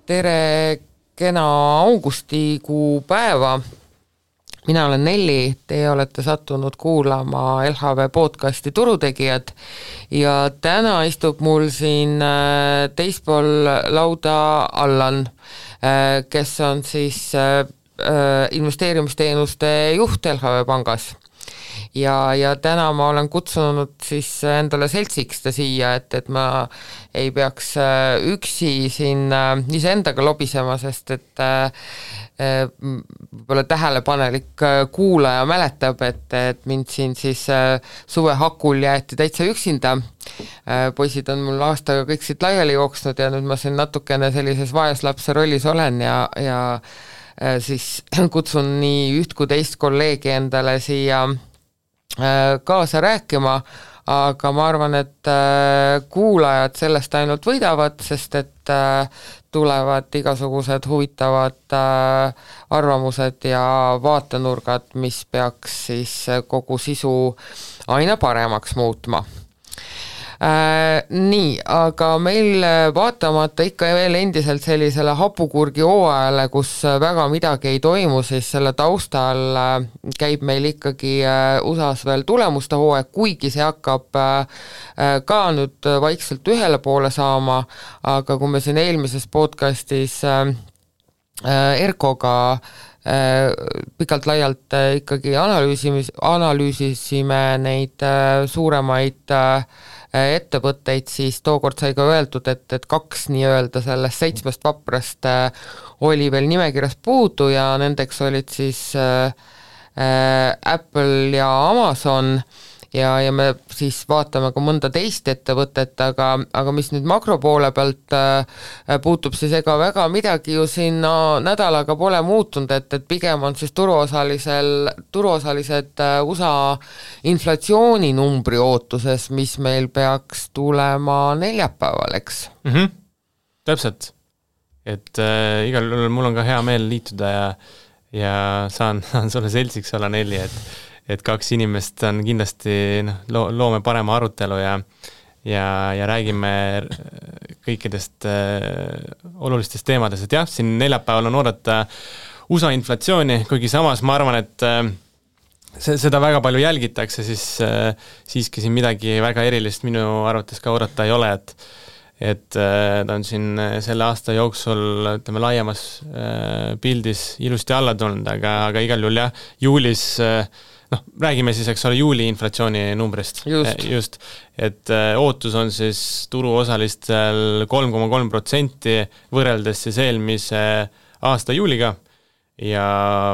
Tere kena augustikuu päeva. Mina olen Nelli, teie olete sattunud kuulama LHV podcasti Turutegijad ja täna istub mul siin teispool lauda Allan, kes on siis investeerimisteenuste juht LHV pangas. Ja täna ma olen kutsunud siis endale seltsiks ta siia, et ma ei peaks üksi siin iseendaga lobisema, sest et võib-olla tähelepanelik kuulaja mäletab, et mind siin siis suvehakul jäeti täitsa üksinda. Poisid on mul aastaga kõik siit laiali jooksnud ja nüüd ma siin natukene sellises vaeslapse rollis olen ja siis kutsun nii üht kui teist kolleegi endale siia kaasa rääkima, aga ma arvan, et kuulajad sellest ainult võidavad, sest et tulevad igasugused huvitavad arvamused ja vaatenurgad, mis peaks siis kogu sisu aina paremaks muutma. Nii, aga meil vaatamata ikka veel endiselt sellisele hapukurgi hooajale, kus väga midagi ei toimu, siis selle taustal käib meil ikkagi USAs veel tulemuste hooaeg, kuigi see hakkab ka nüüd vaikselt ühele poole saama, aga kui me siin eelmises podcastis Erkoga pikalt laialt ikkagi analüüsisime neid suuremaid ettevõtteid, siis tookord sai ka öeldud, et kaks nii-öelda sellest 7 vaprast oli veel nimekirjas puudu ja nendeks olid siis Apple ja Amazon ja me siis vaatame ka mõnda teist ettevõtet, aga mis nüüd makropoole pealt puutub, siis ega väga midagi ju siin nädalaga pole muutunud, et pigem on siis turuosalised USA inflatsiooninumbri ootuses, mis meil peaks tulema neljapäeval, eks? Täpselt, et igal juhul mul on ka hea meel liituda ja saan sulle seltsiks olla, Nelli, et kaks inimest on kindlasti, loome parema arutelu ja räägime kõikidest olulistest teemadest, et jah, siin neljapäeval on oodata USA inflatsiooni, kuigi samas ma arvan, et seda väga palju jälgitakse, siis siiski siin midagi väga erilist minu arvates ka oodata ei ole, et ta on siin selle aasta jooksul, ütleme, laiemas pildis ilusti alla tulnud, aga igal juhul jah, juulis räägime siis, eks ole, juuli inflatsiooni numbrist. Just. Et ootus on siis turuosalistel 3,3% võrreldes siis eelmise aasta juuliga ja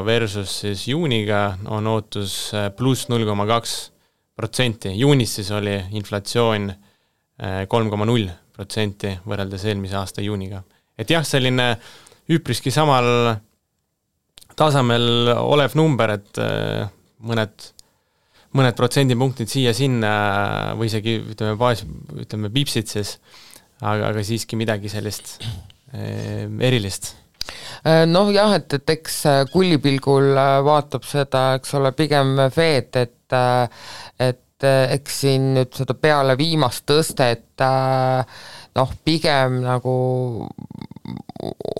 versus siis juuniga on ootus pluss 0,2%. Juunis siis oli inflatsioon 3,0% võrreldes eelmise aasta juuniga. Et jah, selline üpriski samal tasemel olev number, et mõned protsendipunktid siia-sinna või isegi ütleme piipsid siis, aga siiski midagi sellist erilist. Noh jah, et eks kullipilgul vaatab seda, eks ole, pigem Fed, et eks siin nüüd seda peale viimast tõstet pigem nagu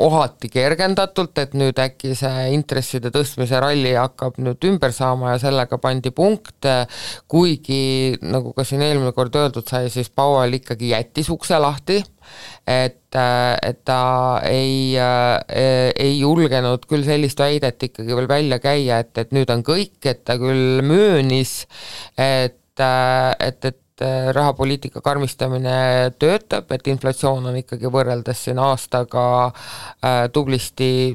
ohati kergendatult, et nüüd äkki see intresside tõstmise ralli hakkab nüüd ümber saama ja sellega pandi punkt, kuigi nagu ka siin eelmine kord öeldud sai, siis Powell ikkagi jättis ukse lahti, et ta ei julgenud küll sellist väidet ikkagi veel välja käia, et nüüd on kõik, et ta küll möönis, et rahapoliitika karmistamine töötab, et inflatsioon on ikkagi võrreldes siin aastaga tublisti,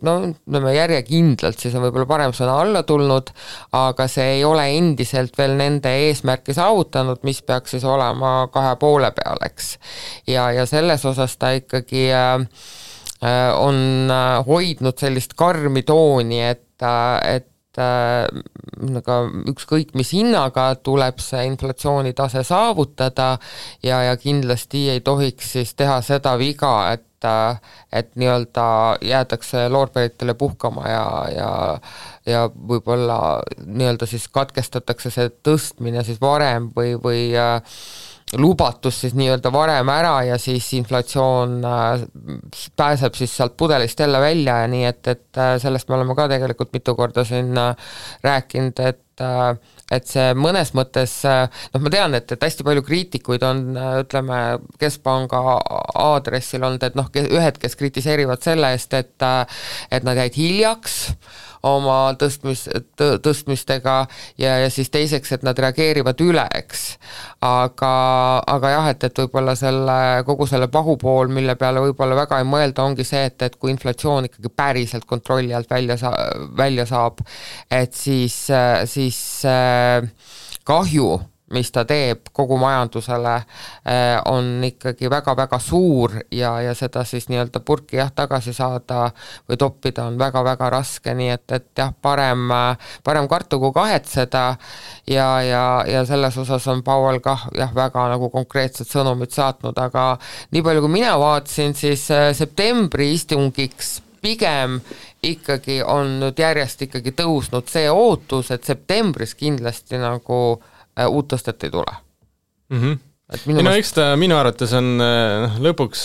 järjekindlalt, siis on võib-olla parem sõna alla tulnud, aga see ei ole endiselt veel nende eesmärki saavutanud, mis peaks siis olema 2,5 peal, eks. Ja selles osas ta ikkagi on hoidnud sellist karmi tooni, et ükskõik mis hinnaga tuleb see inflatsioonitase saavutada ja kindlasti ei tohiks siis teha seda viga, et nii-öelda jäädakse loorberitele puhkama ja võib-olla nii-öelda siis katkestatakse see tõstmine siis varem või lubatus siis nii-öelda varem ära ja siis inflatsioon pääseb siis sealt pudelist jälle välja ja nii, et sellest me oleme ka tegelikult mitu korda siin rääkinud, et see mõnes mõttes, ma tean, et hästi palju kriitikuid on, ütleme, Keskpanga aadressil olnud, et ühed, kes kritiseerivad selle eest, et nad jäid hiljaks oma tõstmistega ja siis teiseks, et nad reageerivad üle, eks. Aga jah, et võib-olla kogu selle pahupool, mille peale võib-olla väga ei mõelda, ongi see, et kui inflatsioon ikkagi päriselt kontrolli alt välja saab, et siis kahju, mis ta teeb kogu majandusele, on ikkagi väga-väga suur ja seda siis nii-öelda purki tagasi saada või toppida on väga-väga raske, nii et jah, parem kartu kui kahetseda ja selles osas on Powell kah jah, väga nagu konkreetsed sõnumid saatnud, aga nii palju kui mina vaatasin, siis septembri istungiks pigem ikkagi on nüüd järjest ikkagi tõusnud see ootus, et septembris kindlasti nagu uut tõstet ei tule. Eks ta minu arvates on lõpuks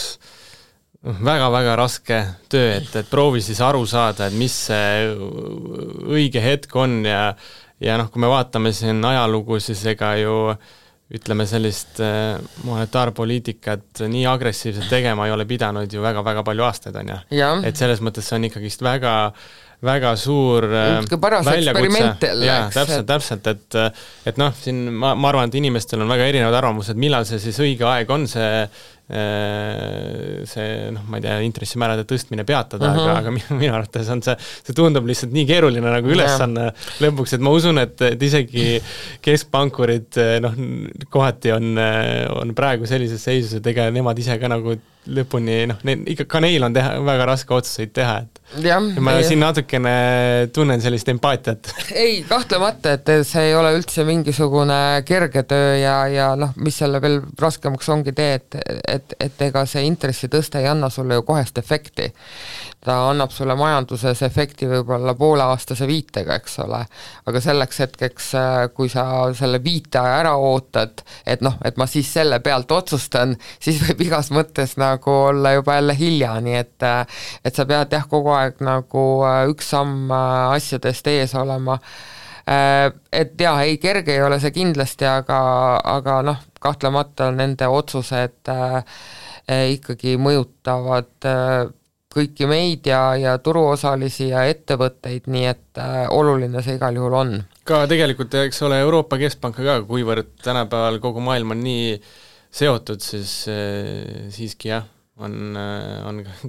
väga-väga raske töö, et proovi siis aru saada, et mis see õige hetk on ja kui me vaatame siin ajalugu, siis ega ju ütleme sellist monetaarpoliitikat nii agressiivselt tegema ei ole pidanud ju väga-väga palju aastaid, on ju. Et selles mõttes see on ikkagist väga suur väljakutse. Täpselt, et siin ma arvan, et inimestel on väga erinevad arvamused, millal see siis õige aeg on see ma ei tea, intressimäärade tõstmine peatada, aga minu arvates on see tundub lihtsalt nii keeruline nagu ülesanne lõpuks, et ma usun, et isegi keskpankurid kohati on praegu sellises seisus, et ega nemad ise ka nagu lõpuni, ikka ka neil on väga raske otsuseid teha, et ma siin natukene tunnen sellist empaatiat. Ei, kahtlemata, et see ei ole üldse mingisugune kerge töö ja mis selle veel raskemaks ongi et ega see intressitõste ei anna sulle ju kohest efekti. Ta annab sulle majanduses efekti võib-olla pooleaastase viitega, eks ole, aga selleks hetkeks, kui sa selle viiteaja ära ootad, et ma siis selle pealt otsustan, siis võib igas mõttes nagu olla juba jälle hilja, nii et sa pead kogu aeg nagu üks samm asjadest ees olema. Et jah, ei kerge ei ole see kindlasti, aga kahtlemata nende otsused ikkagi mõjutavad kõiki meid ja turuosalisi ja ettevõtteid, nii et oluline see igal juhul on. Ka tegelikult, eks ole, Euroopa Keskpanka ka, kuivõrd tänapäeval kogu maailm on nii seotud, siis siiski jah, on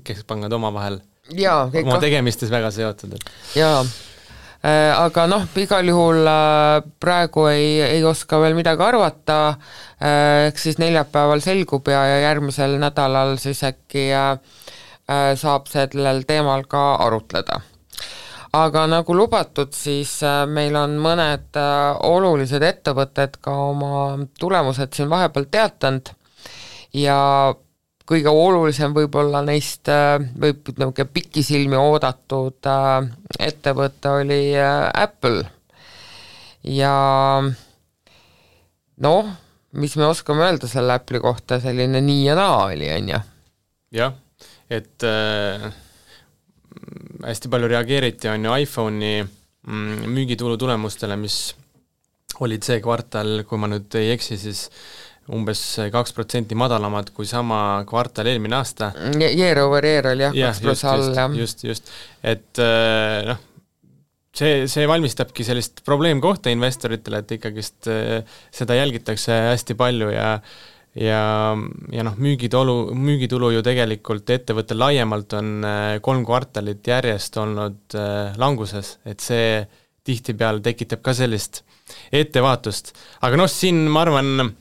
keskpangad omavahel oma tegemistes väga seotud. Jaa, aga igal juhul praegu ei oska veel midagi arvata, eks siis neljapäeval selgub ja järgmisel nädalal siis äkki saab sellel teemal ka arutleda. Aga nagu lubatud, siis meil on mõned olulised ettevõtted ka oma tulemused siin vahepeal teatanud ja kõige olulisem võib-olla neist võib pikisilmi oodatud ettevõte oli Apple ja mis me oskame öelda selle Apple'i kohta, selline nii ja naa oli, on ju? Jah, et hästi palju reageeriti on ju iPhone'i müügitulu tulemustele, mis olid see kvartal, kui ma nüüd ei eksi, siis umbes 2% madalamad kui sama kvartal eelmine aasta. Year over year oli 2% all. Just. Et see valmistabki sellist probleemkohta investoritele, et ikkagist seda jälgitakse hästi palju ja müügitulu ju tegelikult ettevõttel laiemalt on 3 kvartalit järjest olnud languses, et see tihtipeale tekitab ka sellist ettevaatust. Aga siin ma arvan,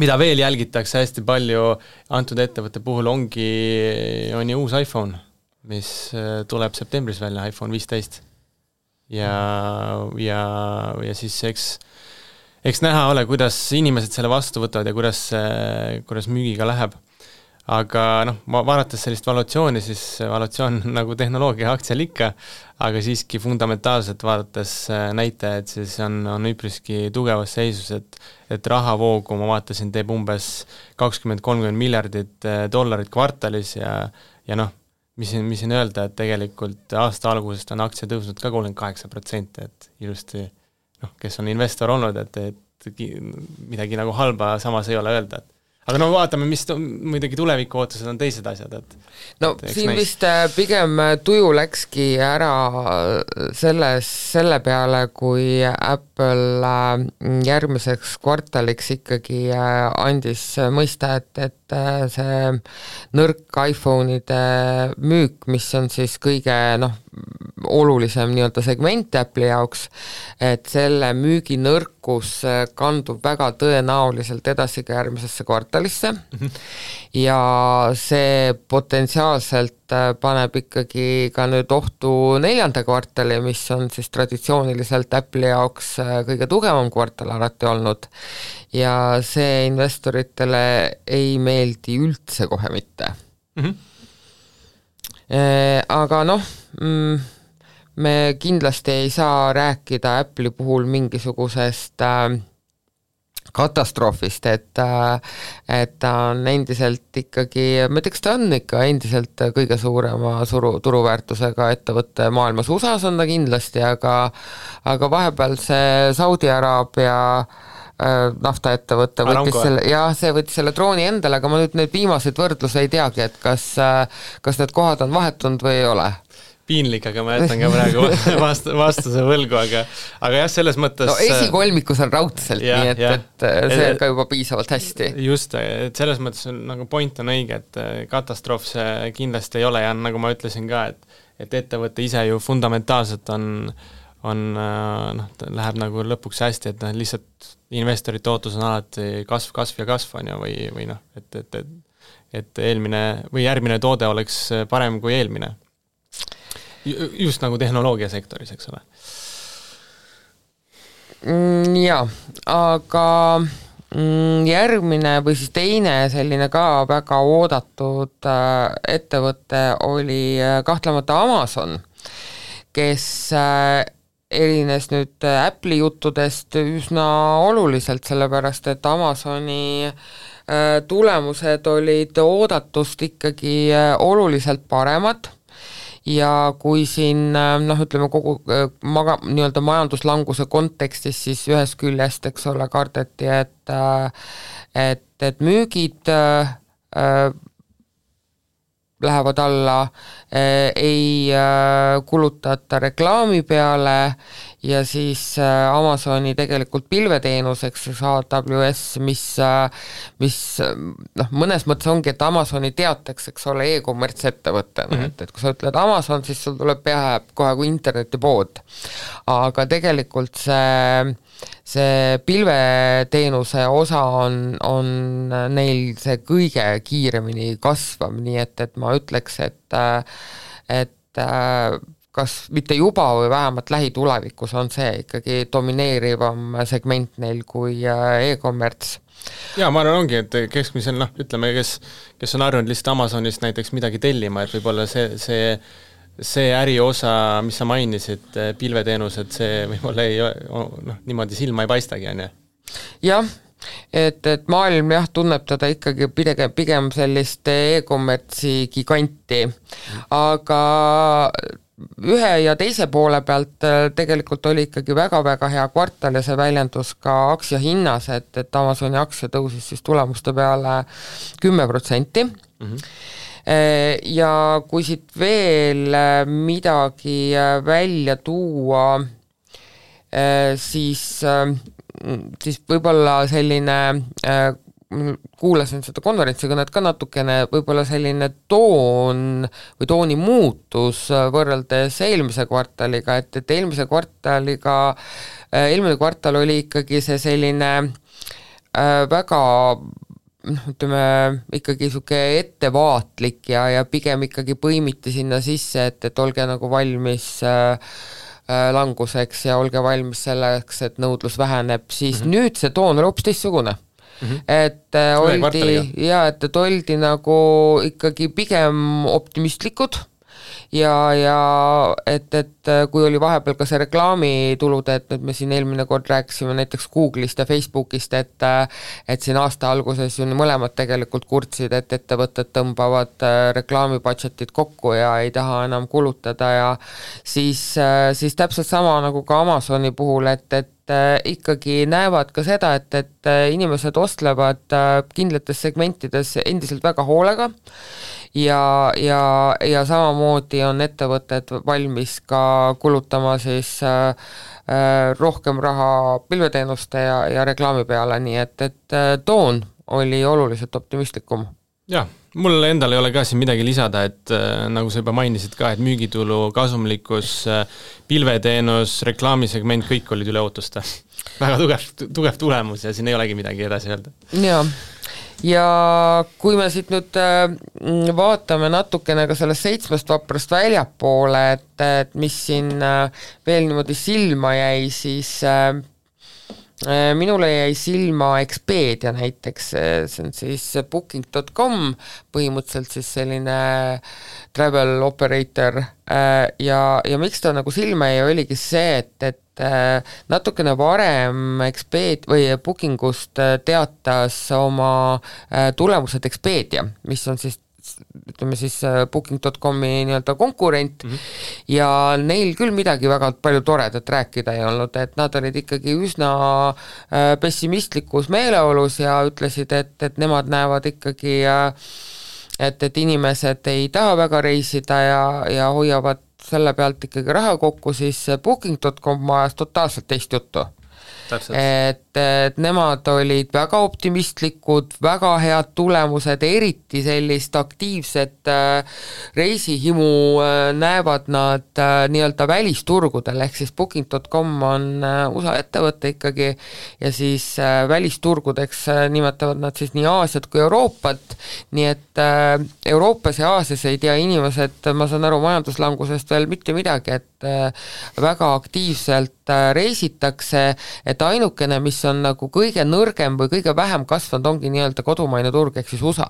mida veel jälgitakse hästi palju antud ettevõtte puhul on ju uus iPhone, mis tuleb septembris välja, iPhone 15. Ja siis eks näha ole, kuidas inimesed selle vastu võtavad ja kuidas müügiga läheb. aga noh, vaadates sellist valuatsiooni, siis valuatsioon nagu tehnoloogia aktsial ikka, aga siiski fundamentaalselt vaadates näitajaid, siis on üpriski tugevas seisus, et rahavoogu, ma vaatasin, teeb umbes 20-30 miljardit dollarit kvartalis ja noh, mis siin öelda, et tegelikult aasta algusest on aktsia tõusnud ka 38%, et ilusti, noh, kes on investor olnud, et midagi nagu halba samas ei ole öelda, aga no vaatame, mis muidugi tuleviku ootused on teised asjad, et no et siin vist pigem tuju läkski ära selle peale, kui Apple järgmiseks kvartaliks ikkagi andis mõista, et see nõrk iPhone'ide müük, mis on siis kõige olulisem nii-öelda segment Apple'i jaoks, et selle müügi nõrkus kandub väga tõenäoliselt edasi ka järgmisesse kvartalisse ja see potentsiaalselt paneb ikkagi ka nüüd ohtu 4. kvartali, mis on siis traditsiooniliselt Apple'i jaoks kõige tugevam kvartal alati olnud ja see investoritele ei meeldi üldse kohe mitte. Aga noh, me kindlasti ei saa rääkida Apple'i puhul mingisugusest katastroofist, et ta on endiselt ikkagi, ma ütleks, ta on ikka endiselt kõige suurema turuväärtusega ettevõtte maailmas, USA-s on ta kindlasti, aga vahepeal see Saudi Araabia naftaettevõte võttis selle drooni endale, aga ma nüüd neid viimaseid võrdluse ei teagi, et kas need kohad on vahetunud või ei ole. Piinlik, aga ma jätan ka praegu vastuse võlgu, aga jah, selles mõttes no esikolmikus on raudselt, nii et see on ka juba piisavalt hästi. Just, et selles mõttes nagu point on õige, et katastroof see kindlasti ei ole ja nagu ma ütlesin ka, et ettevõte ise ju fundamentaalselt läheb nagu lõpuks hästi, et lihtsalt investorite ootus on alati kasv on ju, või noh, et eelmine või järgmine toode oleks parem kui eelmine. Just nagu tehnoloogiasektoris, eks ole. Jaa, aga järgmine või siis teine selline ka väga oodatud ettevõte oli kahtlemata Amazon, kes erines nüüd Apple'i juttudest üsna oluliselt, sellepärast et Amazoni tulemused olid oodatust ikkagi oluliselt paremad ja kui siin ütleme kogu nii-öelda majanduslanguse kontekstis, siis ühest küljest, eks ole, kardeti, et müügid lähevad alla, ei kulutata reklaami peale ja siis Amazoni tegelikult pilveteenuseks AWS, mis mõnes mõttes ongi, et Amazoni teatakse, eks ole, e-commerce ettevõttena, et kui sa ütled Amazon, siis sul tuleb peale kohe kui internetipood, aga tegelikult see pilveteenuse osa on neil see kõige kiiremini kasvav, nii et ma ütleks, et kas mitte juba või vähemalt lähitulevikus on see ikkagi domineerivam segment neil kui e-commerce. Jaa, ma arvan ongi, et keskmisel, ütleme, kes on harjunud lihtsalt Amazonist näiteks midagi tellima, et võib-olla see äriosa, mis sa mainisid, pilveteenused, see võib-olla niimoodi silma ei paistagi, on ju? Jah, et maailm tunneb teda ikkagi pigem sellist e-commerce'i giganti, aga ühe ja teise poole pealt tegelikult oli ikkagi väga-väga hea kvartal ja see väljendus ka aktsiahinnas, et Amazoni aktsia tõusis siis tulemuste peale 10%. Ja kui siit veel midagi välja tuua, siis võib-olla selline, kuulasin seda konverentsikõnet ka natukene, võib-olla selline toon või tooni muutus võrreldes eelmise kvartaliga, et eelmise kvartaliga, eelmine kvartal oli ikkagi see selline väga ütleme, ikkagi niisugune ettevaatlik ja pigem ikkagi põimiti sinna sisse, et olge nagu valmis languseks ja olge valmis selleks, et nõudlus väheneb, siis nüüd see toon on hoopis teistsugune. et oldi nagu ikkagi pigem optimistlikud ja et kui oli vahepeal ka see reklaamitulude, et nüüd me siin eelmine kord rääkisime näiteks Google'ist ja Facebookist, et siin aasta alguses ju mõlemad tegelikult kurtsid, et ettevõtted tõmbavad reklaamibudgetit kokku ja ei taha enam kulutada ja siis täpselt sama nagu ka Amazoni puhul, et ikkagi näevad ka seda, et inimesed ostlevad kindlates segmentides endiselt väga hoolega ja samamoodi on ettevõtted valmis ka kulutama siis rohkem raha pilveteenuste ja reklaami peale, nii et toon oli oluliselt optimistlikum. Jah, mul endal ei ole ka siin midagi lisada, et nagu sa juba mainisid ka, et müügitulu, kasumlikkus, pilveteenus, reklaamisegment, kõik olid üle ootuste. Väga tugev tulemus ja siin ei olegi midagi edasi öelda. Ja kui me siit nüüd vaatame natukene ka sellest 7 vaprast väljapoole, et mis siin veel niimoodi silma jäi, siis minule jäi silma Expedia näiteks, see on siis booking.com, põhimõtteliselt siis selline travel operator ja miks ta nagu silma jäi, oligi see, et natukene varem Expedia või Bookingust teatas oma tulemused Expedia, mis on siis ütleme siis booking.comi nii-öelda konkurent ja neil küll midagi väga palju toredat rääkida ei olnud, et nad olid ikkagi üsna pessimistlikus meeleolus ja ütlesid, et nemad näevad ikkagi, et inimesed ei taha väga reisida ja hoiavad selle pealt ikkagi raha kokku, siis booking.com ajas totaalselt teist juttu. Et nemad olid väga optimistlikud, väga head tulemused, eriti sellist aktiivset reisihimu näevad nad nii-öelda välisturgudel, ehk siis booking.com on USA ettevõte ikkagi ja siis välisturgudeks nimetavad nad siis nii Aasiat kui Euroopat, nii et Euroopas ja Aasias ei tea inimesed, ma saan aru majanduslangusest veel mitte midagi, et väga aktiivselt reisitakse, et ainukene, mis on nagu kõige nõrgem või kõige vähem kasvanud, ongi nii-öelda kodumaine turg, ehk siis USA.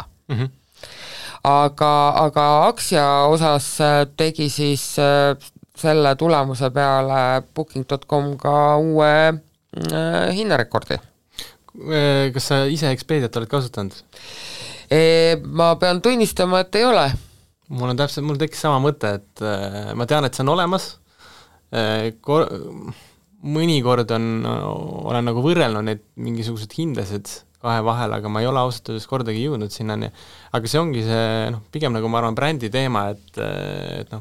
Aga aktsia osas tegi siis selle tulemuse peale booking.com ka uue hinnarekordi. Kas sa ise Expediat oled kasutanud? Ma pean tunnistama, et ei ole. Mul tekkis sama mõte, et ma tean, et see on olemas, mõnikord olen nagu võrrelnud neid mingisugused hindasid kahe vahel, aga ma ei ole ausalt öeldes kordagi jõudnud sinnani. Aga see ongi see, pigem nagu ma arvan brändi teema, et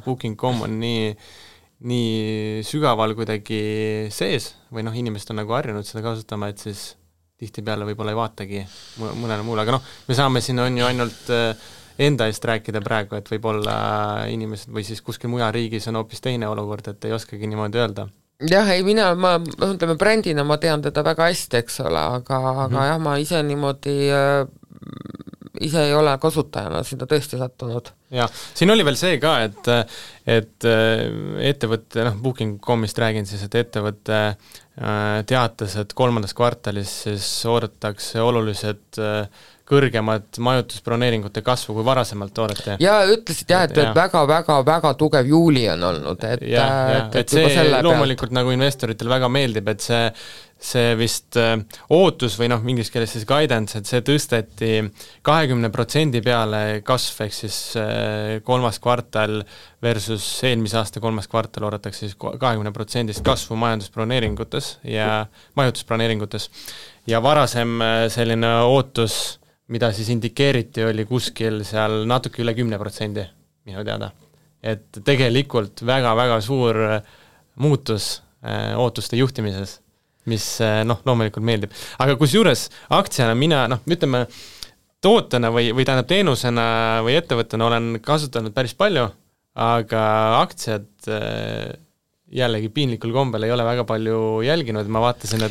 Booking.com on nii sügaval kuidagi sees või inimesed on nagu harjunud seda kasutama, et siis tihtipeale võib-olla ei vaatagi mõnele muule, aga me saame siin on ju ainult enda eest rääkida praegu, et võib-olla inimesed või siis kuskil mujal riigis on hoopis teine olukord, et ei oskagi niimoodi öelda. Jah, ei ma ütleme brändina ma tean teda väga hästi, eks ole, aga jah, ma ise niimoodi ise ei ole kasutajana seda tõesti sattunud. Ja, siin oli veel see ka, et ettevõtte, Booking.comist räägin siis, et ettevõtte teatas, et 3. kvartalis siis oodatakse oluliselt kõrgemad majutusbroneeringute kasvu kui varasemalt oodati. Ja ütlesid et väga tugev juuli on olnud, et see loomulikult nagu investoritel väga meeldib, et see vist ootus või inglise keeles siis guidance, et see tõsteti 20% peale kasv, ehk siis 3. kvartal versus eelmise aasta 3. kvartal oodatakse siis 20% kasvu majandusbroneeringutes ja majutusbroneeringutes ja varasem selline ootus, mida siis indikeeriti, oli kuskil seal natuke üle 10% minu teada. Et tegelikult väga-väga suur muutus ootuste juhtimises, mis loomulikult meeldib. Aga kusjuures aktsiana mina, ütleme, tootena või tähendab teenusena või ettevõttena olen kasutanud päris palju, aga aktsiad jällegi piinlikul kombel ei ole väga palju jälginud, ma vaatasin,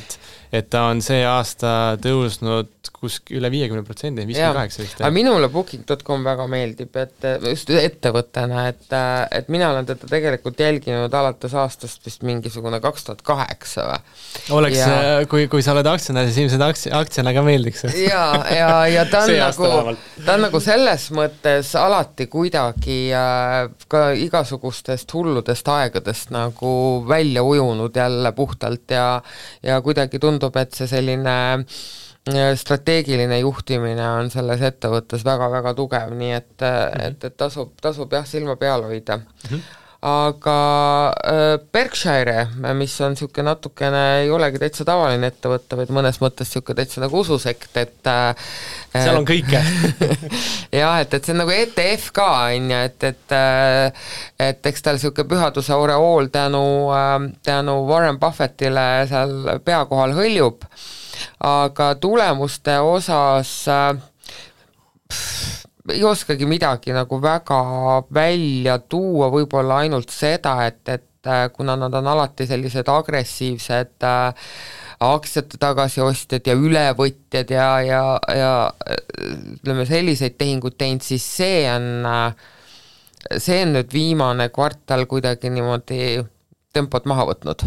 et ta on see aasta tõusnud üle 50%, 58%. Aga minule Booking.com väga meeldib, et just ettevõttena, et mina olen teda tegelikult jälginud alates aastast vist mingisugune 2008 või. Oleks, kui sa oled aktsionär, siis ilmselt aktsiana ka meeldiks. Ja ta on nagu selles mõttes alati kuidagi ka igasugustest hulludest aegadest nagu välja ujunud jälle puhtalt ja kuidagi tundub, et see selline strateegiline juhtimine on selles ettevõttes väga-väga tugev, nii et tasub jah silma peal hoida. Aga Berkshire, mis on niisugune natukene, ei olegi täitsa tavaline ettevõtte, vaid mõnes mõttes niisugune täitsa nagu ususekt, et seal on kõike. jah, et see on nagu ETF ka, et eks tal niisugune pühaduse oreool tänu Warren Buffettile seal pea kohal hõljub, aga tulemuste osas ei oskagi midagi nagu väga välja tuua, võib-olla ainult seda, et kuna nad on alati sellised agressiivsed aktsiate tagasiostjad ja ülevõtjad ja ütleme selliseid tehinguid teinud, siis see on nüüd viimane kvartal kuidagi niimoodi tempot maha võtnud.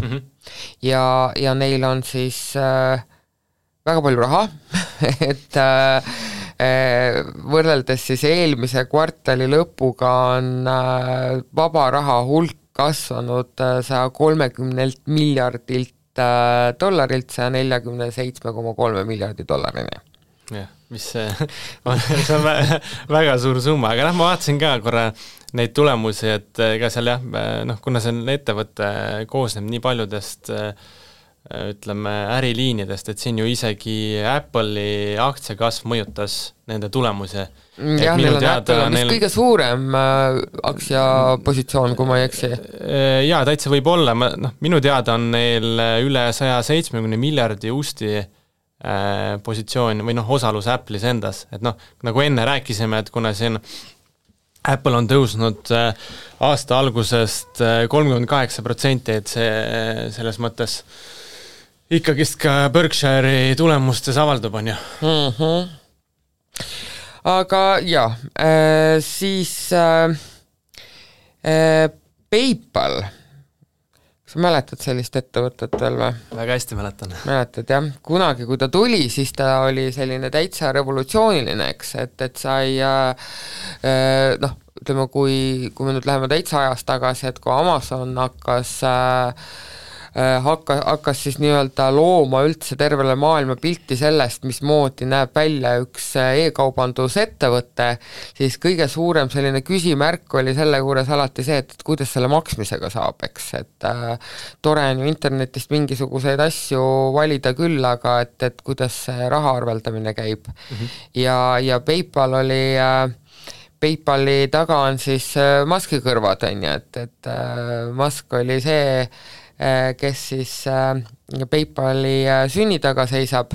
Ja neil on siis väga palju raha, et võrreldes siis eelmise kvartali lõpuga on vaba raha hulk kasvanud 130 miljardilt dollarilt 147,3 miljardi dollarini. Jah, mis see on väga suur summa, aga ma vaatasin ka korra neid tulemusi, et ega seal kuna see ettevõte koosneb nii paljudest ütleme äriliinidest, et siin ju isegi Apple'i aktsiakasv mõjutas nende tulemusi. Jah, neil on Apple on vist kõige suurem aktsiapositsioon, kui ma ei eksi. Jaa, täitsa võib olla, minu teada on neil üle 170 miljardi usti positsioon või osalus Apple'is endas, et nagu enne rääkisime, et kuna siin Apple on tõusnud aasta algusest 38%, et see selles mõttes ikkagist ka Berkshire'i tulemustes avaldub, on ju. Aga jah, siis PayPal, kas sa mäletad sellist ettevõtet veel või? Väga hästi mäletan. Mäletad, jah. Kunagi, kui ta tuli, siis ta oli selline täitsa revolutsiooniline, eks, et sai ütleme, kui me nüüd läheme täitsa ajast tagasi, et kui Amazon hakkas siis nii-öelda looma üldse tervele maailma pilti sellest, mismoodi näeb välja üks e-kaubandusettevõte, siis kõige suurem selline küsimärk oli selle juures alati see, et kuidas selle maksmisega saab, eks, et tore on ju internetist mingisuguseid asju valida küll, aga et kuidas see raha arveldamine käib. Ja PayPal PayPali taga on siis Muski kõrvad, on ju, et Musk oli see, kes siis PayPali sünni taga seisab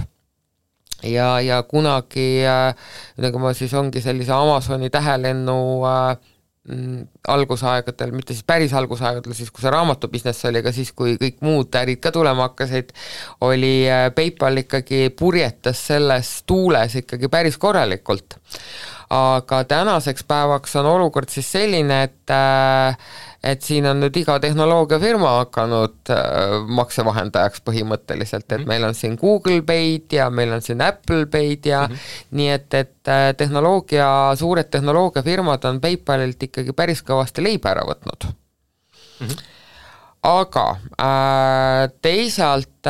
ja kunagi nagu ma siis ongi sellise Amazoni tähelennu algusaegadel, mitte siis päris algusaegadel, siis kui see raamatubusiness oli, aga siis kui kõik muud ärid ka tulema hakkasid, oli PayPal ikkagi purjetas selles tuules ikkagi päris korralikult. Aga tänaseks päevaks on olukord siis selline, et siin on nüüd iga tehnoloogiafirma hakanud maksevahendajaks põhimõtteliselt, et meil on siin Google Pay'd ja meil on siin Apple Pay'd ja nii et suured tehnoloogiafirmad on PayPalilt ikkagi päris kõvasti leiba ära võtnud. Aga teisalt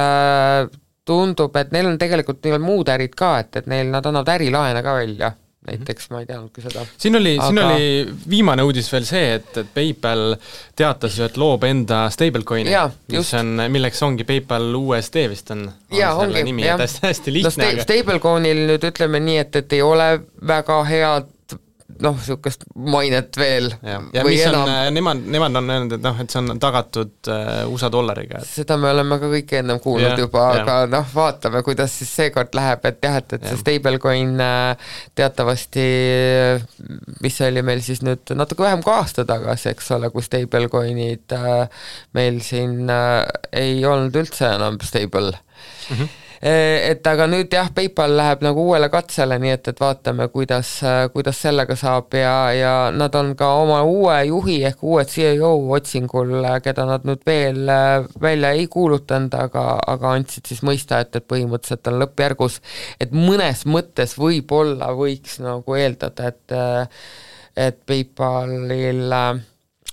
tundub, et neil on tegelikult neil muud ärid ka, et nad annavad ärilaene ka välja. Näiteks ma ei teadnudki seda. Siin oli viimane uudis veel see, et PayPal teatas ju, et loob enda stablecoini, milleks ongi PayPal USD vist on selle nimi, et hästi lihtne. Stablecoinil nüüd ütleme nii, et ei ole väga head niisugust mainet veel. Ja mis on, nemad on öelnud, et see on tagatud USA dollariga. Seda me oleme ka kõik ennem kuulnud juba, aga vaatame, kuidas siis seekord läheb, et see stablecoin teatavasti, mis oli meil siis nüüd natuke vähem kui aasta tagasi, eks ole, kui stablecoinid meil siin ei olnud üldse enam stable. et aga nüüd jah, PayPal läheb nagu uuele katsele, nii et vaatame, kuidas sellega saab ja nad on ka oma uue juhi ehk uue CEO otsingul, keda nad nüüd veel välja ei kuulutanud, aga andsid siis mõista, et põhimõtteliselt on lõppjärgus, et mõnes mõttes võib-olla võiks nagu eeldada, et PayPalil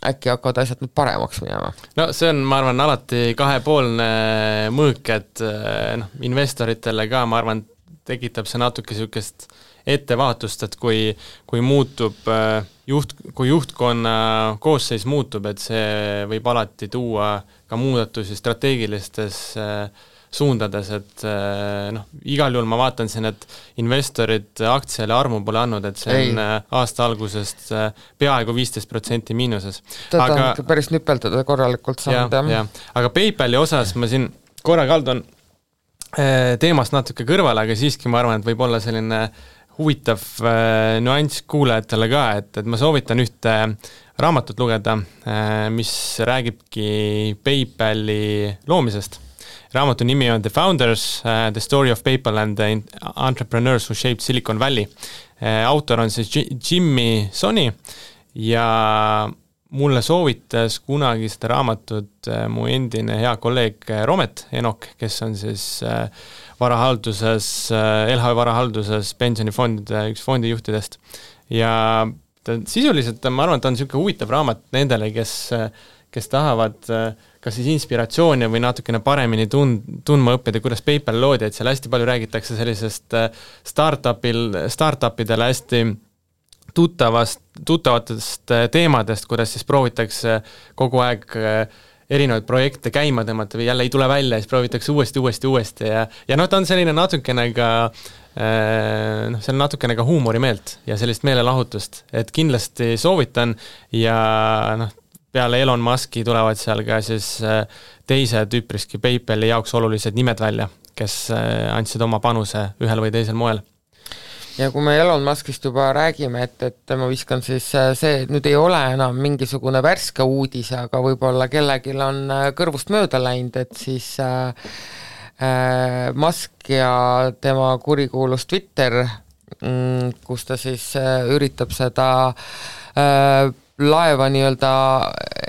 äkki hakkavad asjad nüüd paremaks minema. No see on, ma arvan, alati kahepoolne mõõk, et investoritele ka, ma arvan, tekitab see natuke niisugust ettevaatust, et kui muutub kui juhtkonna koosseis muutub, et see võib alati tuua ka muudatusi strateegilistes suundades, et igal juhul ma vaatan siin, et investorid aktsiale armu pole andnud, et see on aasta algusest peaaegu 15% miinuses. Aga on päris nüpeldada korralikult saanud, jah. Aga PayPali osas ma siin korra kaldun teemast natuke kõrvale, aga siiski ma arvan, et võib olla selline huvitav nüanss kuulajatele ka, et ma soovitan ühte raamatut lugeda, mis räägibki PayPali loomisest. Raamatu nimi on The Founders, The Story of PayPal and the Entrepreneurs Who Shaped Silicon Valley. Autor on siis Jimmy Soni ja mulle soovitas kunagi seda raamatut mu endine hea kolleeg Romet Enok, kes on siis varahalduses, LHV varahalduses pensionifondide üks fondijuhtidest. Ja sisuliselt ma arvan, et ta on niisugune huvitav raamat nendele, kes tahavad kas siis inspiratsiooni või natukene paremini tundma õppida, kuidas PayPal loodi, et seal hästi palju räägitakse sellisest startupidele hästi tuttavatest teemadest, kuidas siis proovitakse kogu aeg erinevaid projekte käima tõmmata või jälle ei tule välja, siis proovitakse uuesti ja ta on selline natukene ka see on natukene ka huumorimeelt ja sellist meelelahutust, et kindlasti soovitan ja peale Elon Muski tulevad seal ka siis teised üpriski PayPali jaoks olulised nimed välja, kes andsid oma panuse ühel või teisel moel. Ja kui me Elon Muskist juba räägime, et ma viskan siis see, et nüüd ei ole enam mingisugune värske uudis, aga võib-olla kellegil on kõrvust mööda läinud, et siis Musk ja tema kurikuulus Twitter, kus ta siis üritab seda laeva nii-öelda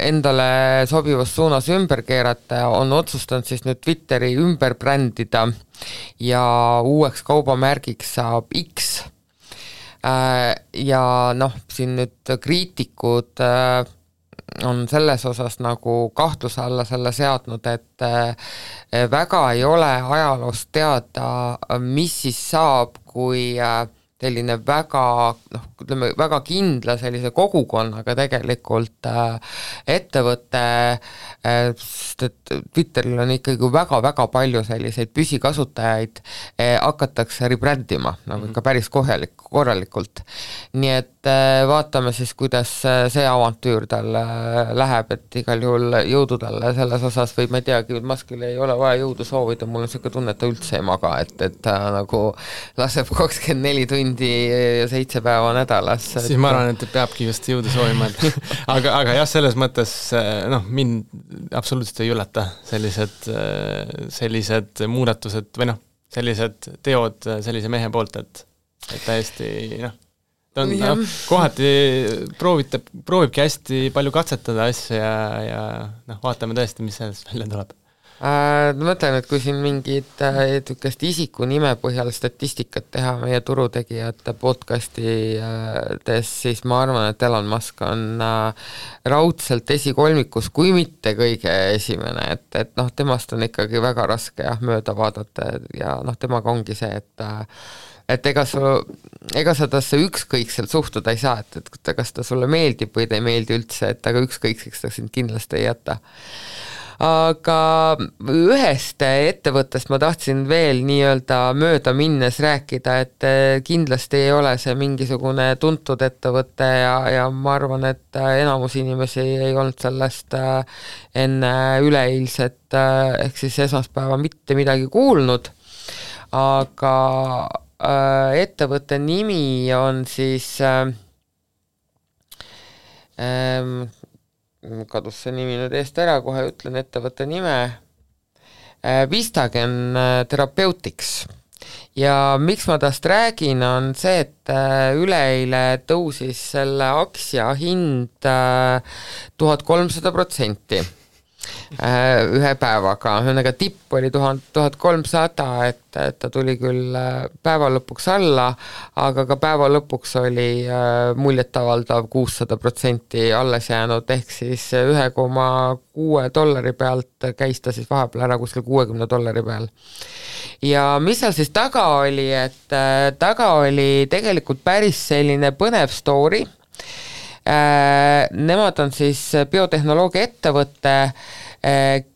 endale sobivas suunas ümber keerata, on otsustanud siis nüüd Twitteri ümber brändida ja uueks kaubamärgiks saab X. Ja siin nüüd kriitikud on selles osas nagu kahtluse alla selle seadnud, et väga ei ole ajaloost teada, mis siis saab, kui selline väga kindla sellise kogukonnaga tegelikult ettevõte, sest et Twitteril on ikkagi väga palju selliseid püsikasutajaid, hakatakse rebrändima nagu ikka päris korralikult. Nii et vaatame siis, kuidas see avantüür tal läheb, et igal juhul jõudu talle selles osas või ma ei teagi, Muskil ei ole vaja jõudu soovida, mul on selline tunne, et ta üldse ei maga, et ta nagu laseb 24 tundi ja 7 päeva nädalas. Siis ma arvan, et peabki just jõudu soovima, aga jah, selles mõttes mind absoluutselt ei üllata sellised muudatused või sellised teod sellise mehe poolt, et täiesti ta on kohati proovibki hästi palju katsetada asja ja vaatame tõesti, mis sellest välja tuleb. Ma mõtlen, et kui siin mingid isiku nime põhjal statistikat teha meie turutegijate podcastides, siis ma arvan, et Elon Musk on raudselt esikolmikus, kui mitte kõige esimene, et temast on ikkagi väga raske mööda vaadata ja temaga ongi see, et ega sa tasse ükskõikselt suhtuda ei saa, et kas ta sulle meeldib või ta ei meeldi üldse, et aga ükskõikseks ta sind kindlasti ei jäta. Aga ühest ettevõttest ma tahtsin veel nii-öelda mööda minnes rääkida, et kindlasti ei ole see mingisugune tuntud ettevõte ja ma arvan, et enamus inimesi ei olnud sellest enne üleeilset ehk siis esmaspäeva mitte midagi kuulnud, aga ettevõtte nimi on siis kadus see nimi nüüd eest ära, kohe ütlen ettevõtte nime, Vistagen Therapeutics. Ja miks ma tast räägin, on see, et üleeile tõusis selle aktsia hind 1300%. Ühe päevaga, ühesõnaga tipp oli 1300, et ta tuli küll päeva lõpuks alla, aga ka päeva lõpuks oli muljetavaldav 600% alles jäänud, ehk siis $1,6 pealt käis ta siis vahepeal ära kuskil $60 peal. Ja mis seal siis taga oli, et taga oli tegelikult päris selline põnev story. Nemad on siis biotehnoloogia ettevõte,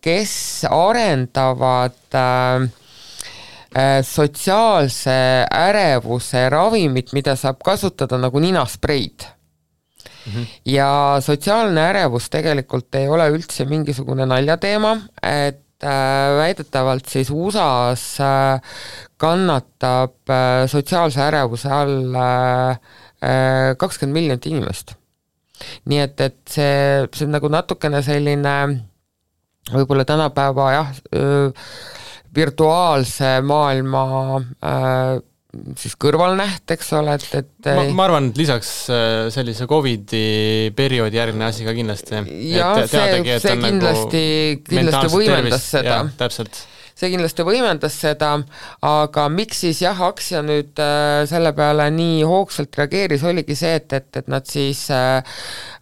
kes arendavad sotsiaalse ärevuse ravimit, mida saab kasutada nagu ninaspreid. Ja sotsiaalne ärevus tegelikult ei ole üldse mingisugune naljateema, et väidetavalt siis USA-s kannatab sotsiaalse ärevuse all 20 miljonit inimest. Nii et see on nagu natukene selline võib-olla tänapäeva virtuaalse maailma siis kõrvalnäht, eks ole, et ma arvan, et lisaks sellise COVID-i perioodi järgne asi ka kindlasti. Ja see kindlasti võimendas seda. Täpselt. See kindlasti võimendas seda, aga miks siis aktsia nüüd selle peale nii hoogsalt reageeris, oligi see, et nad siis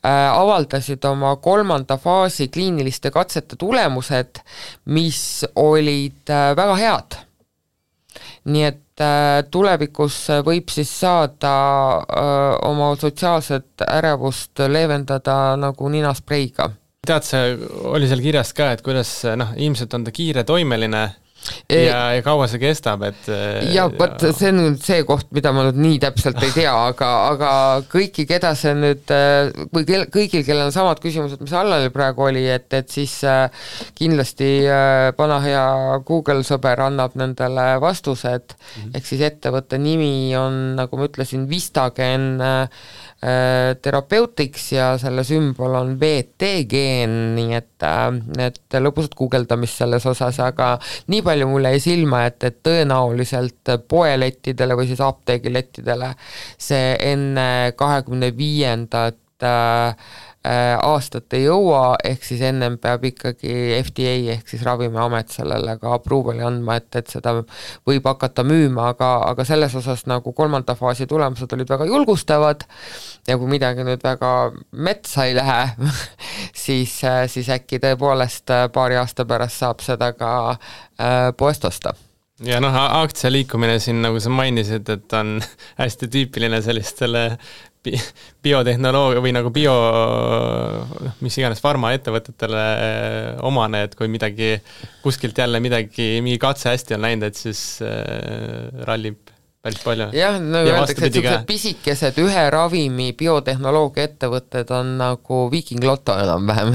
avaldasid oma 3. faasi kliiniliste katsete tulemused, mis olid väga head. Nii et tulevikus võib siis saada oma sotsiaalset ärevust leevendada nagu ninaspreiga. Tead, see oli seal kirjas ka, et kuidas ilmselt on ta kiire toimeline ja kaua see kestab, et ja võt, see on nüüd see koht, mida ma nüüd nii täpselt ei tea, aga kõiki, keda see nüüd, või kõigil, kellel on samad küsimused, mis Allalil praegu oli, et siis kindlasti pana hea Google sõber annab nendele vastused, ehk siis ettevõtte nimi on, nagu ma ütlesin, Vistagen Therapeutics ja selle sümbol on VT-geen, nii et lõpusat guugeldamist selles osas, aga nii palju mulle jäi silma, et tõenäoliselt poelettidele või siis apteegilettidele see enne 25. Aastat ei jõua, ehk siis ennem peab ikkagi FDA ehk siis Ravimiamet sellele ka approval'i andma, et seda võib hakata müüma, aga selles osas nagu 3. faasi tulemused olid väga julgustavad ja kui midagi nüüd väga metsa ei lähe, siis äkki tõepoolest paari aasta pärast saab seda ka poest osta. Ja aktsia liikumine siin, nagu sa mainisid, et on hästi tüüpiline sellistele biotehnoloogia või nagu mis iganes farmaettevõtetele omane, et kui midagi kuskilt jälle mingi katse hästi on läinud, et siis rallib päris palju. Jah, öeldakse, et sellised pisikesed ühe ravimi biotehnoloogia ettevõtted on nagu Viking Lotto enam-vähem,